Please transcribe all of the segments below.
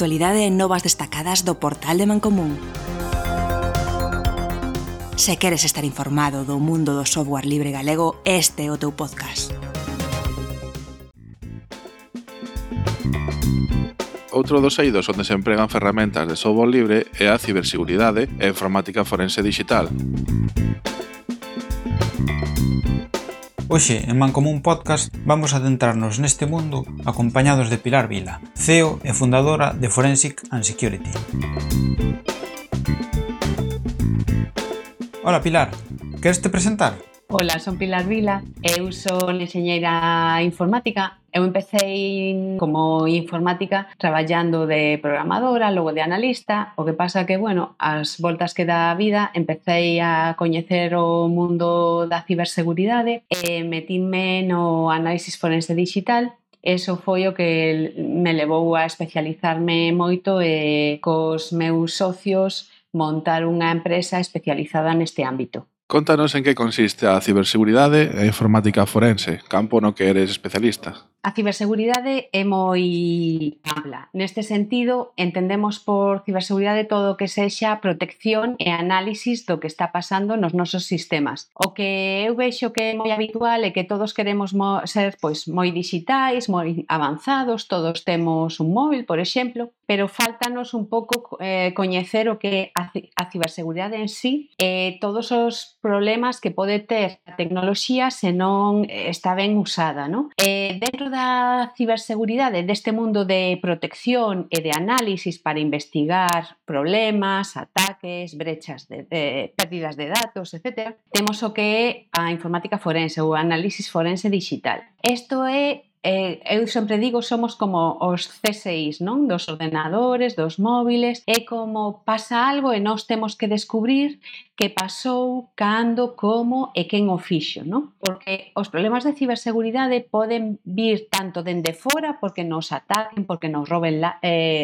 actualidade e novas destacadas do portal de Mancomún. Se queres estar informado do mundo do software libre galego, este é o teu podcast. Outro dos eidos onde se empregan ferramentas de software libre é a ciberseguridade e a informática forense digital. Hoxe, en Mancomún Podcast, vamos a adentrarnos neste mundo acompañados de Pilar Vila, CEO e fundadora de Forensic and Security. Hola Pilar, queres te presentar? Hola, son Pilar Vila, eu son enxeñeira informática. Eu empecei como informática traballando de programadora, logo de analista. O que pasa que, as voltas que dá a vida, empecei a coñecer o mundo da ciberseguridade e metinme no análisis forense digital. Eso foi o que me levou a especializarme moito e cos meus socios montar unha empresa especializada neste ámbito. Contanos en que consiste a ciberseguridade e a informática forense, campo no que eres especialista. A ciberseguridade é moi ampla. Neste sentido, entendemos por ciberseguridade todo o que sexa protección e análisis do que está pasando nos nosos sistemas. O que eu vexo que é moi habitual é que todos queremos ser moi digitais, moi avanzados, todos temos un móvil, por exemplo, pero faltanos un pouco coñecer o que é a ciberseguridade en sí e todos os problemas que pode ter a tecnoloxía se non está ben usada, non? Dentro da ciberseguridade, deste mundo de protección e de análisis para investigar problemas, ataques, brechas de pérdidas de datos, etc., temos o que é a informática forense ou análisis forense digital. Isto é eu sempre digo, somos como os CSIs, non? Dos ordenadores, dos móviles, é como pasa algo e nós temos que descubrir que pasou, cando, como e quen o fixo, non? Porque os problemas de ciberseguridade poden vir tanto dende fora porque nos ataquen, porque nos roben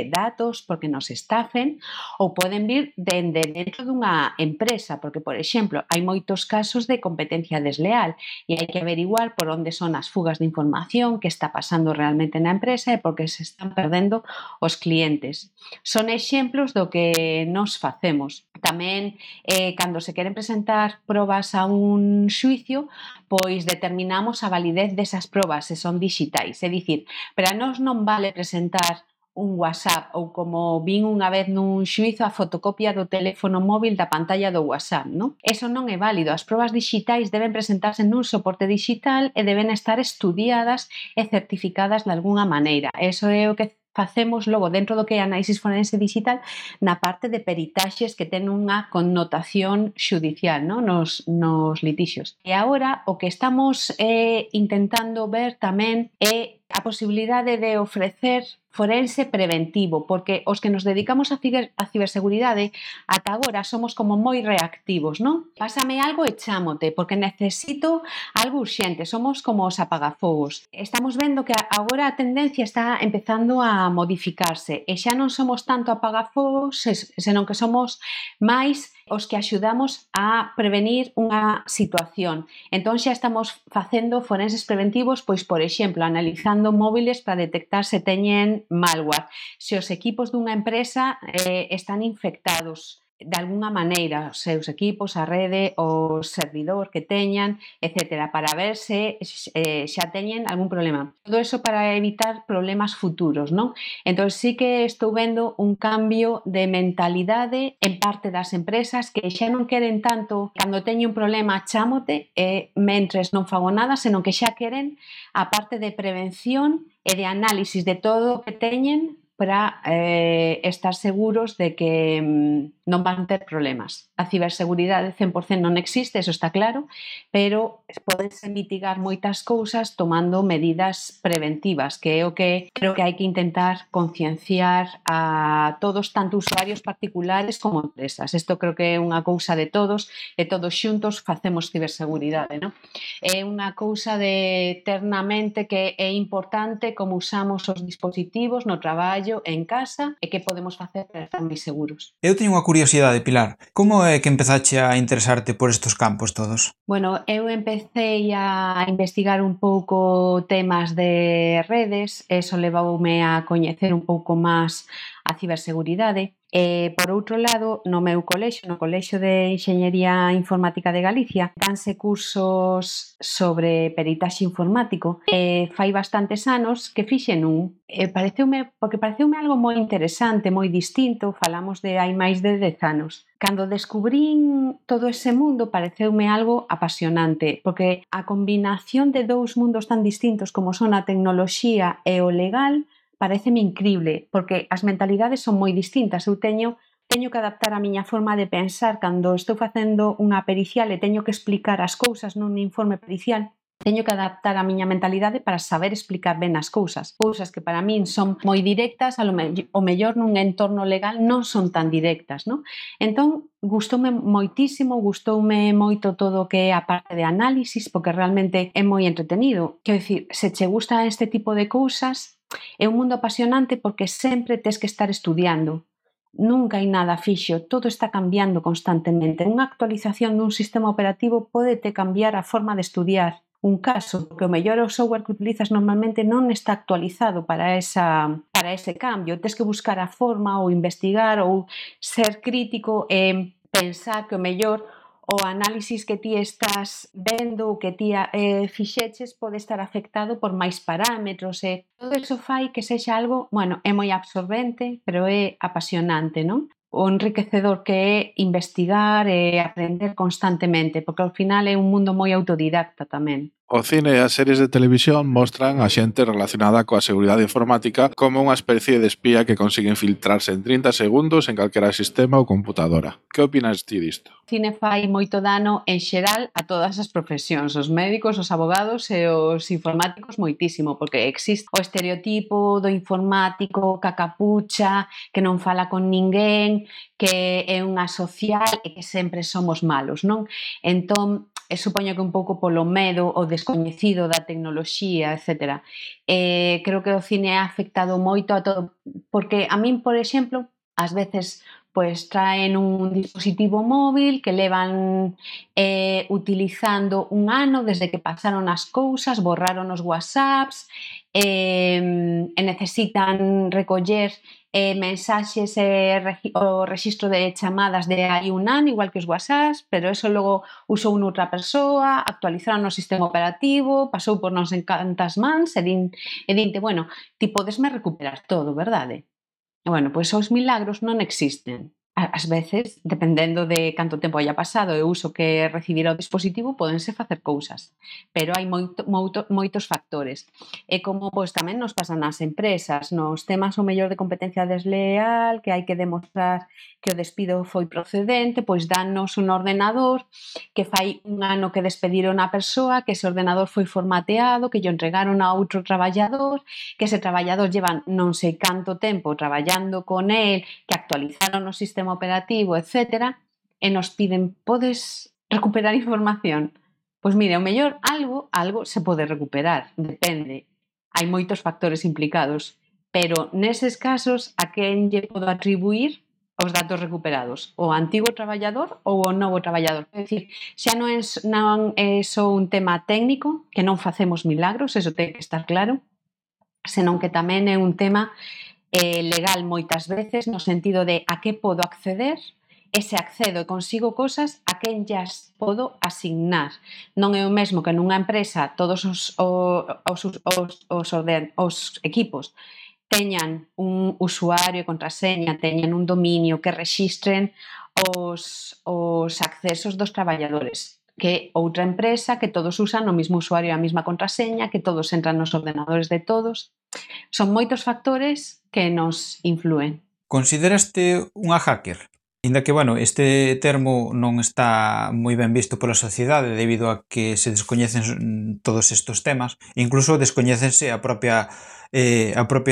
datos, porque nos estafen, ou poden vir dende dentro dunha empresa, porque, por exemplo, hai moitos casos de competencia desleal e hai que averiguar por onde son as fugas de información, que está pasando realmente na empresa e porque se están perdendo os clientes. Son exemplos do que nos facemos. Tamén, cando se queren presentar probas a un xuicio, pois determinamos a validez desas probas se son digitais. É dicir, para nós non vale presentar un WhatsApp ou como vin unha vez nun xuizo a fotocopia do teléfono móvil da pantalla do WhatsApp, non? Eso non é válido. As probas digitais deben presentarse nun soporte digital e deben estar estudiadas e certificadas de algunha maneira. Eso é o que facemos logo dentro do que é análisis forense digital na parte de peritaxes que ten unha connotación xudicial, non? Nos litixios. E agora o que estamos intentando ver tamén é a posibilidade de ofrecer forense preventivo, porque os que nos dedicamos a ciberseguridade ata agora somos como moi reactivos, non? Pásame algo e chámote, porque necesito algo urxente, somos como os apagafogos. Estamos vendo que agora a tendencia está empezando a modificarse e xa non somos tanto apagafogos, senón que somos máis os que axudamos a prevenir unha situación. Entón xa estamos facendo forenses preventivos, pois, por exemplo, analizando móviles para detectar se teñen malware, se os equipos dunha empresa están infectados de alguna maneira, os seus equipos, a rede, o servidor que teñan, etc., para ver se xa teñen algún problema. Todo eso para evitar problemas futuros, non? Entón, sí que estou vendo un cambio de mentalidade en parte das empresas que xa non queren tanto, cando teño un problema, chámote, mentres non fago nada, senón que xa queren a parte de prevención e de análisis de todo o que teñen para estar seguros de que non van ter problemas. A ciberseguridade 100% non existe, eso está claro, pero podense mitigar moitas cousas tomando medidas preventivas, que é o que creo que hai que intentar concienciar a todos, tanto usuarios particulares como empresas. Isto creo que é unha cousa de todos e todos xuntos facemos ciberseguridade, non? É unha cousa de ter na mente que é importante como usamos os dispositivos no traballo, en casa, e que podemos facer para estar máis seguros. Eu teño unha curiosidade, Pilar, como é que empezache a interesarte por estes campos todos? Bueno, eu empecé a investigar un pouco temas de redes, eso levoume a coñecer un pouco máis a ciberseguridade. Por outro lado, no meu colexio, no Colexio de Enxeñería Informática de Galicia, danse cursos sobre peritaxe informático. Fai bastantes anos que fixen un. Pareceume algo moi interesante, moi distinto, falamos de hai máis de 10 anos. Cando descubrín todo ese mundo pareceume algo apasionante, porque a combinación de dous mundos tan distintos como son a tecnoloxía e o legal pareceme incrible, porque as mentalidades son moi distintas. Eu teño que adaptar a miña forma de pensar cando estou facendo unha pericial e teño que explicar as cousas nun informe pericial. Teño que adaptar a miña mentalidade para saber explicar ben as cousas. Cousas que para min son moi directas, o mellor nun entorno legal non son tan directas, non? Entón, gustoume moito todo o que é a parte de análisis, porque realmente é moi entretenido. Quero dicir, se che gusta este tipo de cousas, é un mundo apasionante porque sempre tes que estar estudiando. Nunca hai nada fixo, todo está cambiando constantemente. Unha actualización dun sistema operativo pódete cambiar a forma de estudiar un caso, porque o mellor o software que utilizas normalmente non está actualizado para ese cambio. Tes que buscar a forma ou investigar ou ser crítico e pensar que o mellor o análisis que ti estás vendo ou que ti fixeches pode estar afectado por máis parámetros e todo iso fai que sexa algo, é moi absorbente, pero é apasionante, non? O enriquecedor que é investigar e aprender constantemente, porque ao final é un mundo moi autodidacta tamén. O cine e as series de televisión mostran a xente relacionada coa seguridade informática como unha especie de espía que consigue infiltrarse en 30 segundos en calquera sistema ou computadora. Que opinas ti disto? O cine fai moito dano en xeral a todas as profesións, os médicos, os abogados e os informáticos moitísimo, porque existe o estereotipo do informático cacapucha, que non fala con ninguén, que é un asocial e que sempre somos malos, non? Entón, supoño que un pouco polo medo o descoñecido da tecnoloxía, etc. Creo que o cine ha afectado moito a todo, porque a min, por exemplo, ás veces traen un dispositivo móvil que levan utilizando un ano desde que pasaron as cousas, borraron os WhatsApps, e necesitan recoller mensaxes e o rexistro de chamadas de hai un ano, igual que os WhatsApps, pero eso logo usou noutra persoa, actualizaron o sistema operativo, pasou por non sei cantas mans e dinte, ti podesme recuperar todo, verdade? Pois os milagros non existen. Ás veces, dependendo de canto tempo haya pasado e o uso que recibirá o dispositivo, pódense facer cousas. Pero hai moitos factores. E como tamén nos pasan nas empresas, nos temas o mellor de competencia desleal, que hai que demostrar que o despido foi procedente, pois dannos un ordenador que fai un ano que despediron a persoa, que ese ordenador foi formateado, que lle entregaron a outro traballador, que ese traballador lleva non sei canto tempo traballando con el, que actualizaron o sistema operativo, etc. E nos piden, podes recuperar información? Pois mire, o mellor algo se pode recuperar, depende. Hai moitos factores implicados, pero neses casos a quen lle podo atribuir os datos recuperados? O antigo traballador ou o novo traballador? É dicir, xa non é só un tema técnico, que non facemos milagros, eso ten que estar claro, senón que tamén é un tema legal moitas veces, no sentido de a que podo acceder, e se accedo e consigo cosas, a quen llas podo asignar. Non é o mesmo que nunha empresa todos os equipos teñan un usuario e contraseña, teñan un dominio, que rexistren os accesos dos traballadores, que outra empresa que todos usan o mesmo usuario e a mesma contraseña, que todos entran nos ordenadores de todos. Son moitos factores que nos influen. Consideraste unha hacker? Inda que, este termo non está moi ben visto pola sociedade debido a que se descoñecen todos estes temas, incluso descoñécense a propia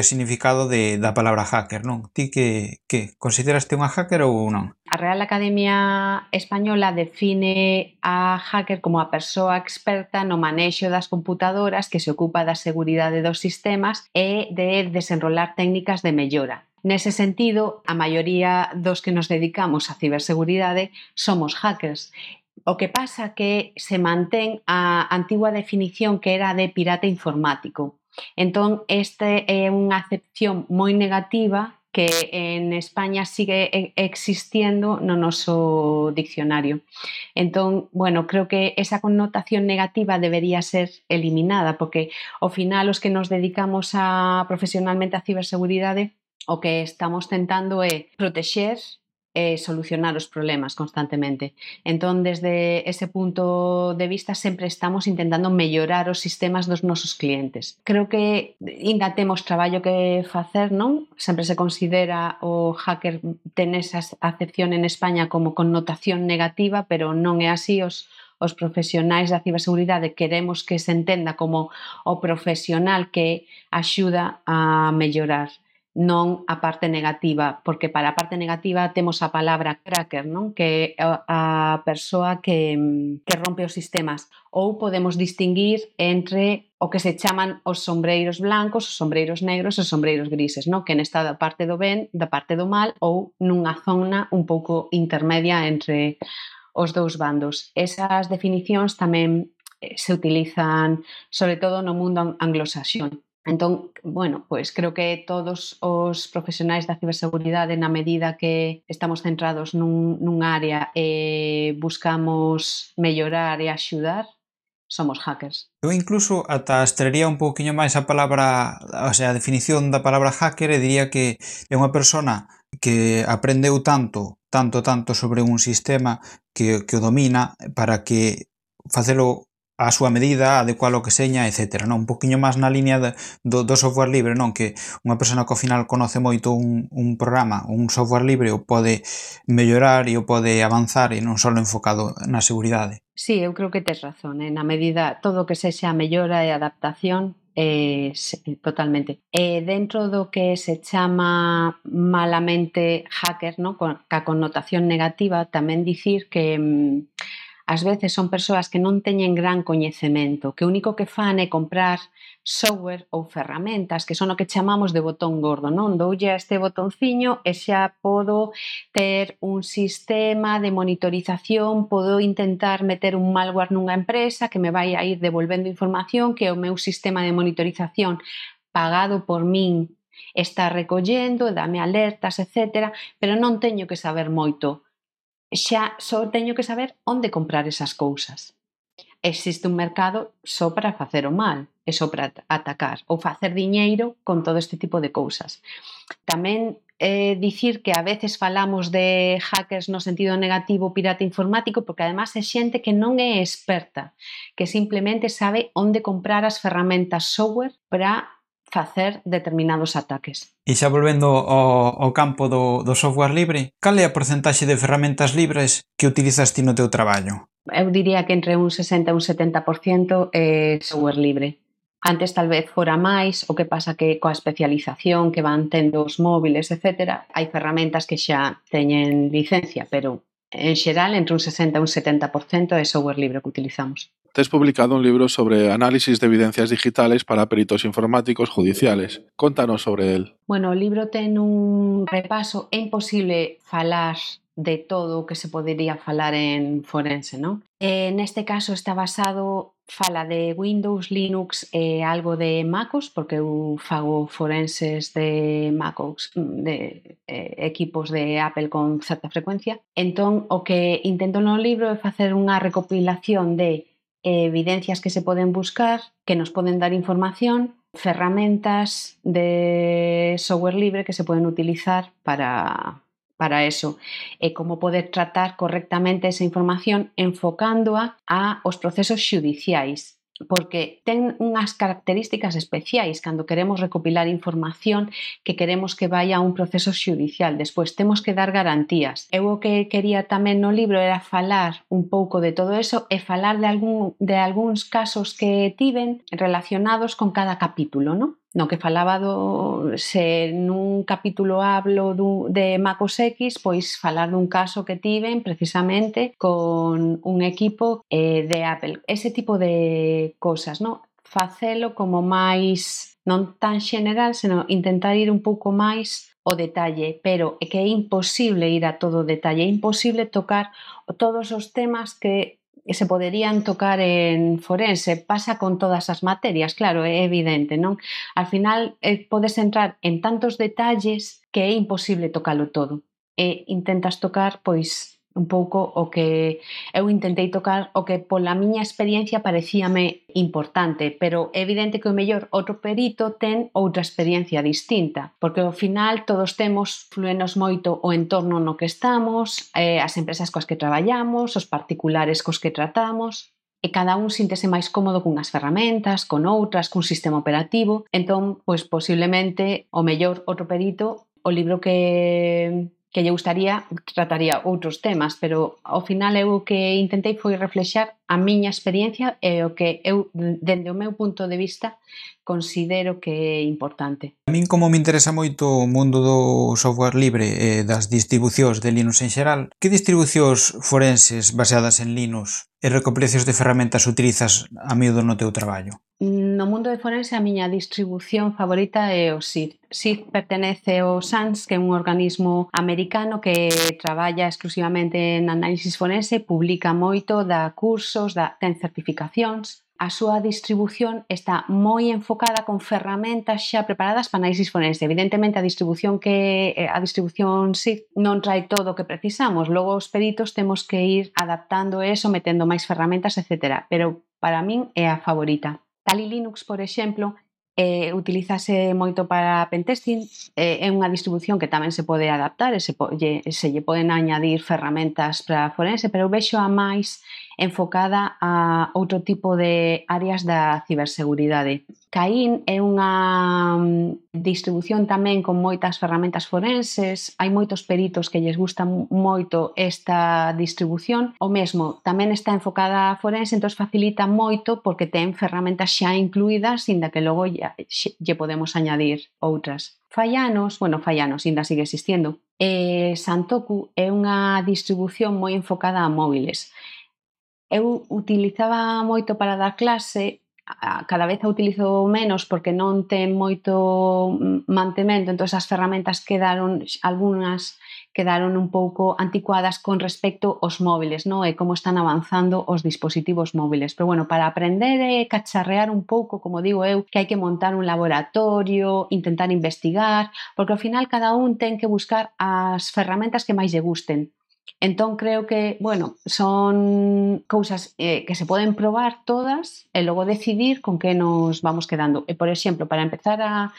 significado da palabra hacker, non? Ti que consideraste unha hacker ou non? A Real Academia Española define a hacker como a persoa experta no manexo das computadoras que se ocupa da seguridade dos sistemas e de desenrolar técnicas de mellora. Nese sentido, a maioría dos que nos dedicamos á ciberseguridade somos hackers. O que pasa que se mantén a antigua definición que era de pirata informático. Entón, este é unha acepción moi negativa que en España sigue existiendo no noso diccionario. Entón, bueno, creo que esa connotación negativa debería ser eliminada, porque ao final os que nos dedicamos profesionalmente á ciberseguridade o que estamos tentando é protexer e solucionar os problemas constantemente. Entón, desde ese punto de vista, sempre estamos intentando mellorar os sistemas dos nosos clientes. Creo que ainda temos traballo que facer, non? Sempre se considera o hacker ten esa acepción en España como connotación negativa, pero non é así. Os profesionais da ciberseguridade queremos que se entenda como o profesional que axuda a mellorar, non a parte negativa, porque para a parte negativa temos a palabra cracker, non? Que é a persoa que rompe os sistemas. Ou podemos distinguir entre o que se chaman os sombreiros blancos, os sombreiros negros e os sombreiros grises, non? Que nesta da parte do ben, da parte do mal, ou nunha zona un pouco intermedia entre os dous bandos. Esas definicións tamén se utilizan sobre todo no mundo anglosaxón. Entón, bueno, pois creo que todos os profesionais da ciberseguridade, na medida que estamos centrados nun área e buscamos mellorar e axudar, somos hackers. Eu incluso ata extraería un pouquiño máis a palabra, o sea, a definición da palabra hacker, e diría que é unha persona que aprendeu tanto sobre un sistema que o domina para que facelo a súa medida, adecualo que seña, etc. Non? Un poquinho máis na liña do software libre, non? Que unha persona que ao final conoce moito un programa, un software libre, o pode mellorar e o pode avanzar e non só enfocado na seguridade. Sí, eu creo que tes razón, na medida todo o que sexa a mellora e adaptación, totalmente. Dentro do que se chama malamente hacker, non? Ca connotación negativa, tamén dicir que ás veces son persoas que non teñen gran coñecemento, que o único que fan é comprar software ou ferramentas que son o que chamamos de botón gordo, non? Doulle a este botonciño e xa podo ter un sistema de monitorización, podo intentar meter un malware nunha empresa que me vai a ir devolvendo información que o meu sistema de monitorización pagado por min está recollendo, dame alertas, etc. Pero non teño que saber moito. Xa só teño que saber onde comprar esas cousas. Existe un mercado só para facer o mal e só para atacar ou facer diñeiro con todo este tipo de cousas. Tamén dicir que a veces falamos de hackers no sentido negativo, pirata informático, porque además é xente que non é experta, que simplemente sabe onde comprar as ferramentas software para facer determinados ataques. E xa volvendo ao campo do software libre, cal é a porcentaxe de ferramentas libres que utilizas ti no teu traballo? Eu diría que entre un 60 e un 70% é software libre. Antes tal vez fora máis, o que pasa que coa especialización que van tendo os móviles, etc., hai ferramentas que xa teñen licencia, pero en xeral entre un 60 e un 70% é software libre que utilizamos. Tes publicado un libro sobre análisis de evidencias digitales para peritos informáticos judiciales. Contanos sobre él. Bueno, o libro ten un repaso. É imposible falar de todo o que se podería falar en forense, non? Neste caso está basado, fala de Windows, Linux e algo de MacOS, porque eu fago forenses de MacOS, de equipos de Apple con certa frecuencia. Entón, o que intento no libro é facer unha recopilación de evidencias que se poden buscar, que nos poden dar información, ferramentas de software libre que se poden utilizar para eso, e como poder tratar correctamente esa información enfocándoa aos procesos xudiciais, porque ten unhas características especiais cando queremos recopilar información que queremos que vai a un proceso xudicial. Despois temos que dar garantías. Eu o que quería tamén no libro era falar un pouco de todo eso e falar de algúns casos que tiven relacionados con cada capítulo, non? No que falaba se nun capítulo hablo de MacOS X, pois falar dun caso que tiven precisamente con un equipo de Apple. Ese tipo de cosas, non? Facelo como máis, non tan general, senón intentar ir un pouco máis o detalle, pero é que é imposible ir a todo o detalle, é imposible tocar todos os temas que se poderían tocar en forense. Pasa con todas as materias, claro, é evidente, non? Al final podes entrar en tantos detalles que é imposible tocalo todo. E intentas tocar, pois, un pouco o que eu intentei tocar, o que pola miña experiencia parecíame importante, pero é evidente que o mellor outro perito ten outra experiencia distinta, porque ao final todos temos, fluenos moito o entorno no que estamos, as empresas coas que traballamos, os particulares cos que tratamos, e cada un síntese máis cómodo cunhas ferramentas, con outras, cun sistema operativo. Entón, pois posiblemente o mellor outro perito, o libro que lle gustaría trataría outros temas, pero ao final eu o que intentei foi reflexar a miña experiencia e o que eu, dende o meu punto de vista, considero que é importante. A min, como me interesa moito o mundo do software libre e das distribucións de Linux en xeral, que distribucións forenses baseadas en Linux e recopilacións de ferramentas utilizas a miúdo no teu traballo? No mundo de forense a miña distribución favorita é o SID. SID pertenece ao SANS, que é un organismo americano que traballa exclusivamente en análisis forense, publica moito, dá cursos, ten certificacións. A súa distribución está moi enfocada con ferramentas xa preparadas para análisis forense. Evidentemente a distribución SID non trae todo o que precisamos, logo os peritos temos que ir adaptando eso, metendo máis ferramentas, etc. Pero para min é a favorita. Kali Linux, por exemplo, utilízase moito para pentesting, é unha distribución que tamén se pode adaptar e se lle poden añadir ferramentas para forense, pero eu vexo a máis enfocada a outro tipo de áreas da ciberseguridade. Caín é unha distribución tamén con moitas ferramentas forenses, hai moitos peritos que lles gusta moito esta distribución, o mesmo tamén está enfocada a forense, entón facilita moito porque ten ferramentas xa incluídas, inda que logo lle podemos añadir outras. Fai anos, ainda sigue existindo, Santoku é unha distribución moi enfocada a móviles. Eu utilizaba moito para dar clase, cada vez a utilizo menos porque non ten moito mantemento, entón as ferramentas algunhas quedaron un pouco anticuadas con respecto aos móviles, non? E como están avanzando os dispositivos móviles. Pero bueno, para aprender e cacharrear un pouco, como digo eu, que hai que montar un laboratorio, intentar investigar, porque ao final cada un ten que buscar as ferramentas que máis lle gusten. Entón creo que, son cousas que se poden probar todas e logo decidir con que nos vamos quedando. E, por exemplo, para empezar a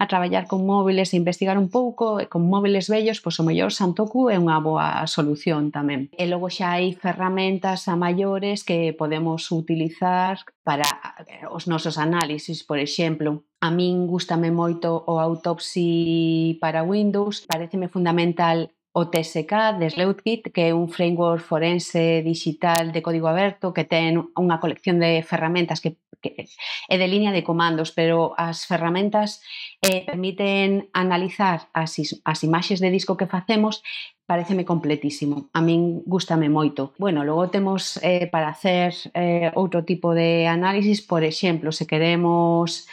traballar con móviles e investigar un pouco, con móviles vellos, pois o mellor Santoku é unha boa solución tamén. E logo xa hai ferramentas a maiores que podemos utilizar para os nosos análisis, por exemplo. A min gústame moito o Autopsy para Windows, pareceme fundamental o TSK de Sleuthkit, que é un framework forense digital de código aberto que ten unha colección de ferramentas que é de línea de comandos, pero as ferramentas permiten analizar as imaxes de disco que facemos. Pareceme completísimo, a min gústame moito. Logo temos para hacer outro tipo de análisis, por exemplo, se queremos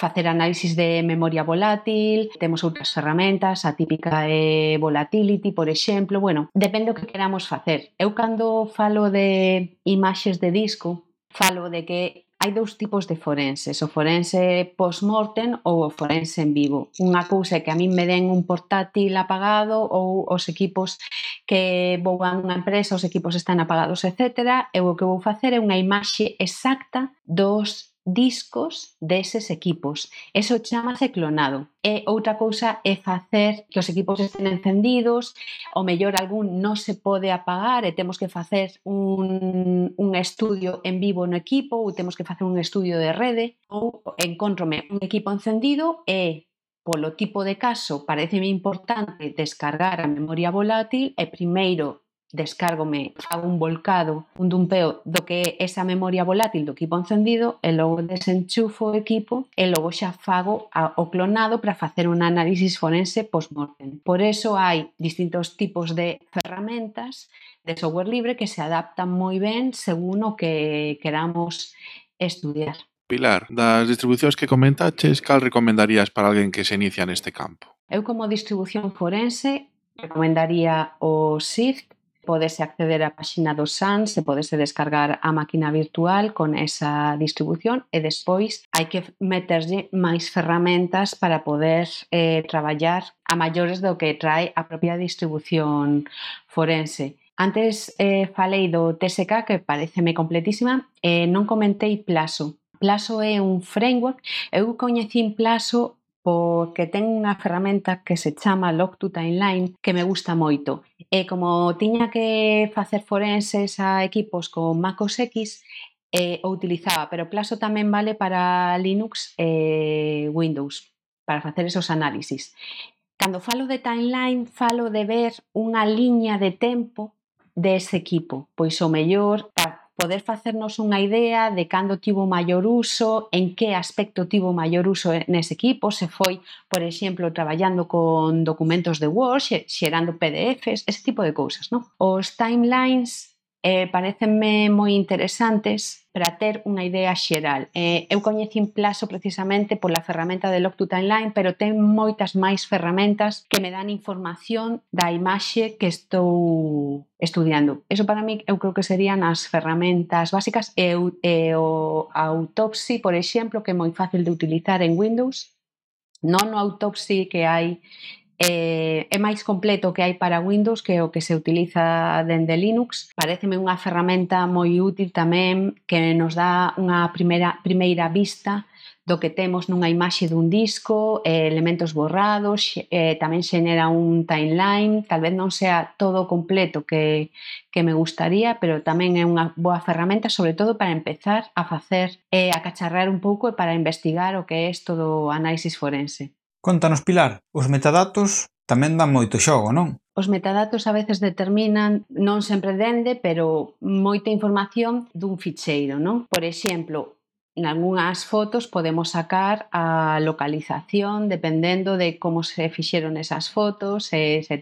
facer análisis de memoria volátil, temos outras ferramentas, a típica é Volatility, por exemplo, depende do que queramos facer. Eu cando falo de imaxes de disco, falo de que hai dous tipos de forenses, o forense post-mortem ou o forense en vivo. Unha cousa é que a min me den un portátil apagado ou os equipos que vou a unha empresa, os equipos están apagados, etc. E o que vou facer é unha imaxe exacta dos discos deses equipos. Eso chamase clonado. E outra cousa é facer que os equipos estén encendidos, o mellor algún non se pode apagar e temos que facer un estudio en vivo no equipo ou temos que facer un estudio de rede, ou encontrome un equipo encendido e polo tipo de caso pareceme importante descargar a memoria volátil e primeiro descárgome, fago un volcado, un dumpeo do que é esa memoria volátil do equipo encendido e logo desenchufo o equipo e logo xa fago o clonado para facer un análisis forense post-mortem. Por eso hai distintos tipos de ferramentas de software libre que se adaptan moi ben según o que queramos estudiar. Pilar, das distribucións que comentaches, cal recomendarías para alguén que se inicia neste campo? Eu como distribución forense recomendaría o Shift. Podese acceder á páxina do SANS e podese descargar a máquina virtual con esa distribución e despois hai que meterlle máis ferramentas para poder traballar a maiores do que trae a propia distribución forense. Antes falei do TSK, que pareceme completísima, e non comentei Plaso. Plaso é un framework. Eu coñecín Plaso porque ten unha ferramenta que se chama Log2Timeline que me gusta moito. E como tiña que facer forenses a equipos con Mac OS X, o utilizaba, pero Plaso tamén vale para Linux e Windows, para facer esos análisis. Cando falo de timeline, falo de ver unha liña de tempo dese equipo, pois o mellor para poder facernos unha idea de cando tivo maior uso, en que aspecto tivo maior uso nese equipo, se foi, por exemplo, traballando con documentos de Word, xerando PDFs, ese tipo de cousas, non? Os timelines parecenme moi interesantes para ter unha idea xeral. Eu coñecín Plaso precisamente pola ferramenta de Log2Timeline, pero ten moitas máis ferramentas que me dan información da imaxe que estou estudiando. Eso para mí eu creo que serían as ferramentas básicas e o Autopsy, por exemplo, que é moi fácil de utilizar en Windows. Non o Autopsy que hai é máis completo que hai para Windows que o que se utiliza dende Linux. Paréceme unha ferramenta moi útil tamén que nos dá unha primeira vista do que temos nunha imaxe dun disco, elementos borrados, tamén xenera un timeline, tal vez non sea todo completo que me gustaría, pero tamén é unha boa ferramenta, sobre todo para empezar a facer, a cacharrar un pouco e para investigar o que é isto do análisis forense. Contanos, Pilar, os metadatos tamén dan moito xogo, non? Os metadatos a veces determinan, non sempre dende, pero moita información dun ficheiro, non? Por exemplo, en algunhas fotos podemos sacar a localización dependendo de como se fixeron esas fotos, se se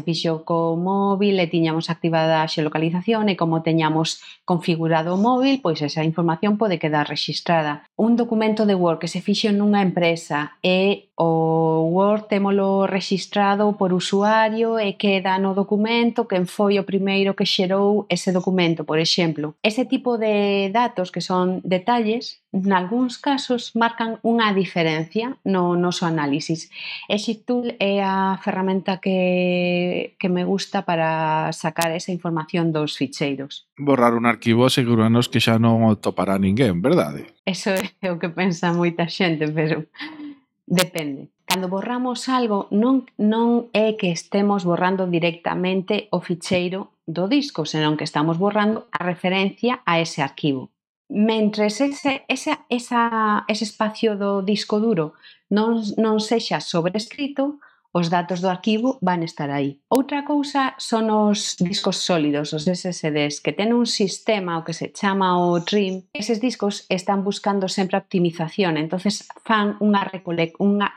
fixo co móvil e tiñamos activada a xeolocalización e como teñamos configurado o móvil, pois esa información pode quedar rexistrada. Un documento de Word que se fixo nunha empresa e o Word témolo rexistrado por usuario e queda no documento quen foi o primeiro que xerou ese documento, por exemplo. Ese tipo de datos que son detalles, nalgúns casos marcan unha diferencia no noso análisis. ExitTool é a ferramenta que me gusta para sacar esa información dos ficheiros. Borrar un arquivo asegúranos que xa non o topará ninguén, verdade? Eso é o que pensa moita xente, pero depende. Cando borramos algo, non é que estemos borrando directamente o ficheiro do disco, senón que estamos borrando a referencia a ese arquivo. Mentres ese espacio do disco duro non sexa sobrescrito, os datos do arquivo van estar aí. Outra cousa son os discos sólidos, os SSDs, que ten un sistema o que se chama o TRIM. Eses discos están buscando sempre a optimización, entonces fan unha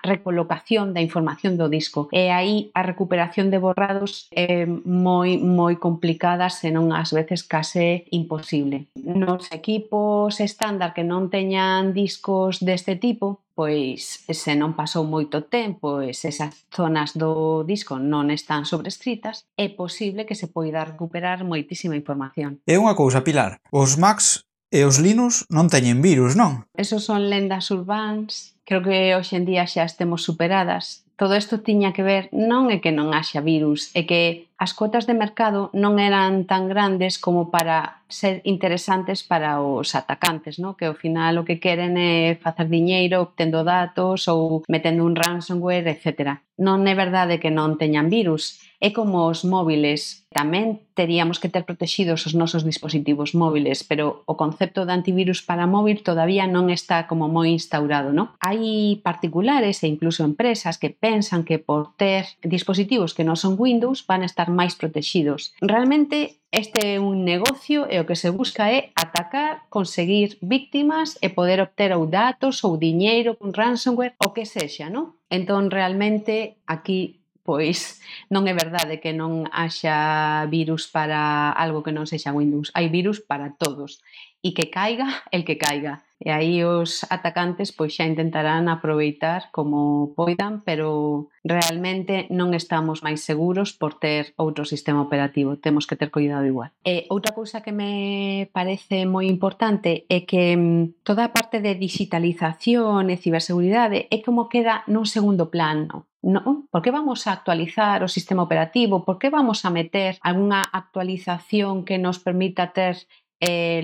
recolocación da información do disco. E aí a recuperación de borrados é moi complicada, senón ás veces case imposible. Nos equipos estándar que non teñan discos deste tipo, pois se non pasou moito tempo e se esas zonas do disco non están sobrescritas, é posible que se poida recuperar moitísima información. É unha cousa, Pilar, os Macs e os Linux non teñen virus, non? Esos son lendas urbáns, creo que hoxe en día xa estemos superadas. Todo isto tiña que ver, non é que non haxa virus, é que as cotas de mercado non eran tan grandes como para ser interesantes para os atacantes, non? Que ao final o que queren é facer diñeiro obtendo datos ou metendo un ransomware, etc. Non é verdade que non teñan virus. É como os móviles. Tamén teríamos que ter protegidos os nosos dispositivos móviles, pero o concepto de antivirus para móvil todavía non está como moi instaurado, non? Hai particulares e incluso empresas que pensan que por ter dispositivos que non son Windows van a estar máis protegidos. Realmente este é un negocio e o que se busca é atacar, conseguir víctimas e poder obter ou datos ou diñeiro con ransomware, o que sexa, non? Entón, realmente, aquí pois non é verdade que non haxa virus para algo que non sexa Windows. Hai virus para todos. E que caiga el que caiga. E aí os atacantes pois xa intentarán aproveitar como poidan, pero realmente non estamos máis seguros por ter outro sistema operativo. Temos que ter cuidado igual. E outra cousa que me parece moi importante é que toda a parte de digitalización e ciberseguridade é como queda nun segundo plano. Non? Por que vamos a actualizar o sistema operativo? Por que vamos a meter algunha actualización que nos permita ter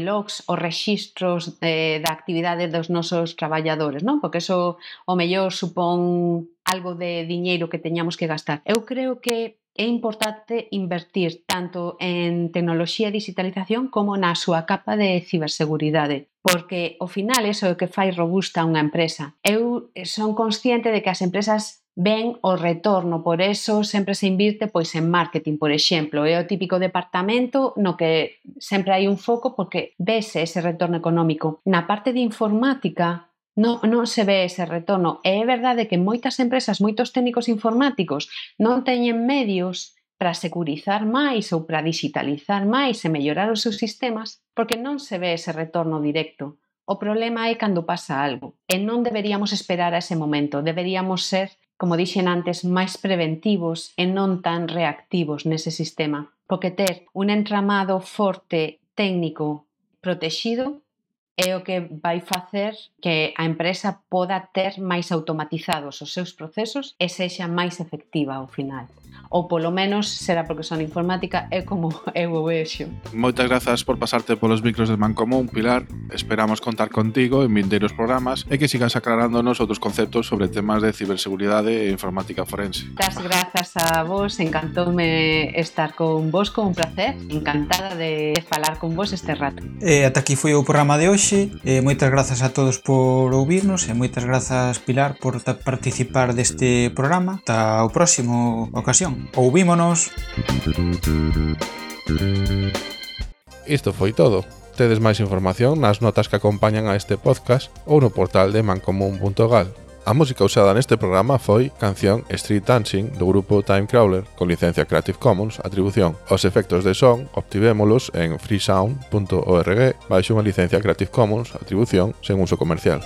logs ou rexistros da actividade dos nosos traballadores, non? Porque eso o mellor supón algo de diñeiro que teñamos que gastar. Eu creo que é importante invertir tanto en tecnoloxía e digitalización como na súa capa de ciberseguridade, porque ao final iso é o que fai robusta unha empresa. Eu son consciente de que as empresas ven o retorno, por eso sempre se invirte pois en marketing, por exemplo. É o típico departamento no que sempre hai un foco porque vese ese retorno económico. Na parte de informática non se ve ese retorno. E é verdade que moitas empresas, moitos técnicos informáticos non teñen medios para securizar máis ou para digitalizar máis e mellorar os seus sistemas porque non se ve ese retorno directo. O problema é cando pasa algo e non deberíamos esperar a ese momento. Deberíamos ser, como dixen antes, máis preventivos e non tan reactivos nese sistema. Porque ter un entramado forte técnico protexido é o que vai facer que a empresa poda ter máis automatizados os seus procesos e sexa máis efectiva ao final. Ou polo menos será porque son informática é como eu o vexo. Moitas grazas por pasarte polos micros de Mancomún, Pilar. Esperamos contar contigo en vindeiros programas e que sigas aclarándonos outros conceptos sobre temas de ciberseguridade e informática forense. Das grazas a vos, encantoume estar con vos, con un placer, encantada de falar con vos este rato. Ata aquí foi o programa de hoxe. Moitas grazas a todos por ouvirnos e moitas grazas, Pilar, por participar deste programa. Ata o próximo ocasión. Ouvímonos. Isto foi todo. Tedes máis información nas notas que acompañan a este podcast ou no portal de mancomún.gal. A música usada neste programa foi canción Street Dancing do grupo Timecrawler con licencia Creative Commons Atribución. Os efectos de son obtivémolos en freesound.org baixo unha licencia Creative Commons Atribución sen uso comercial.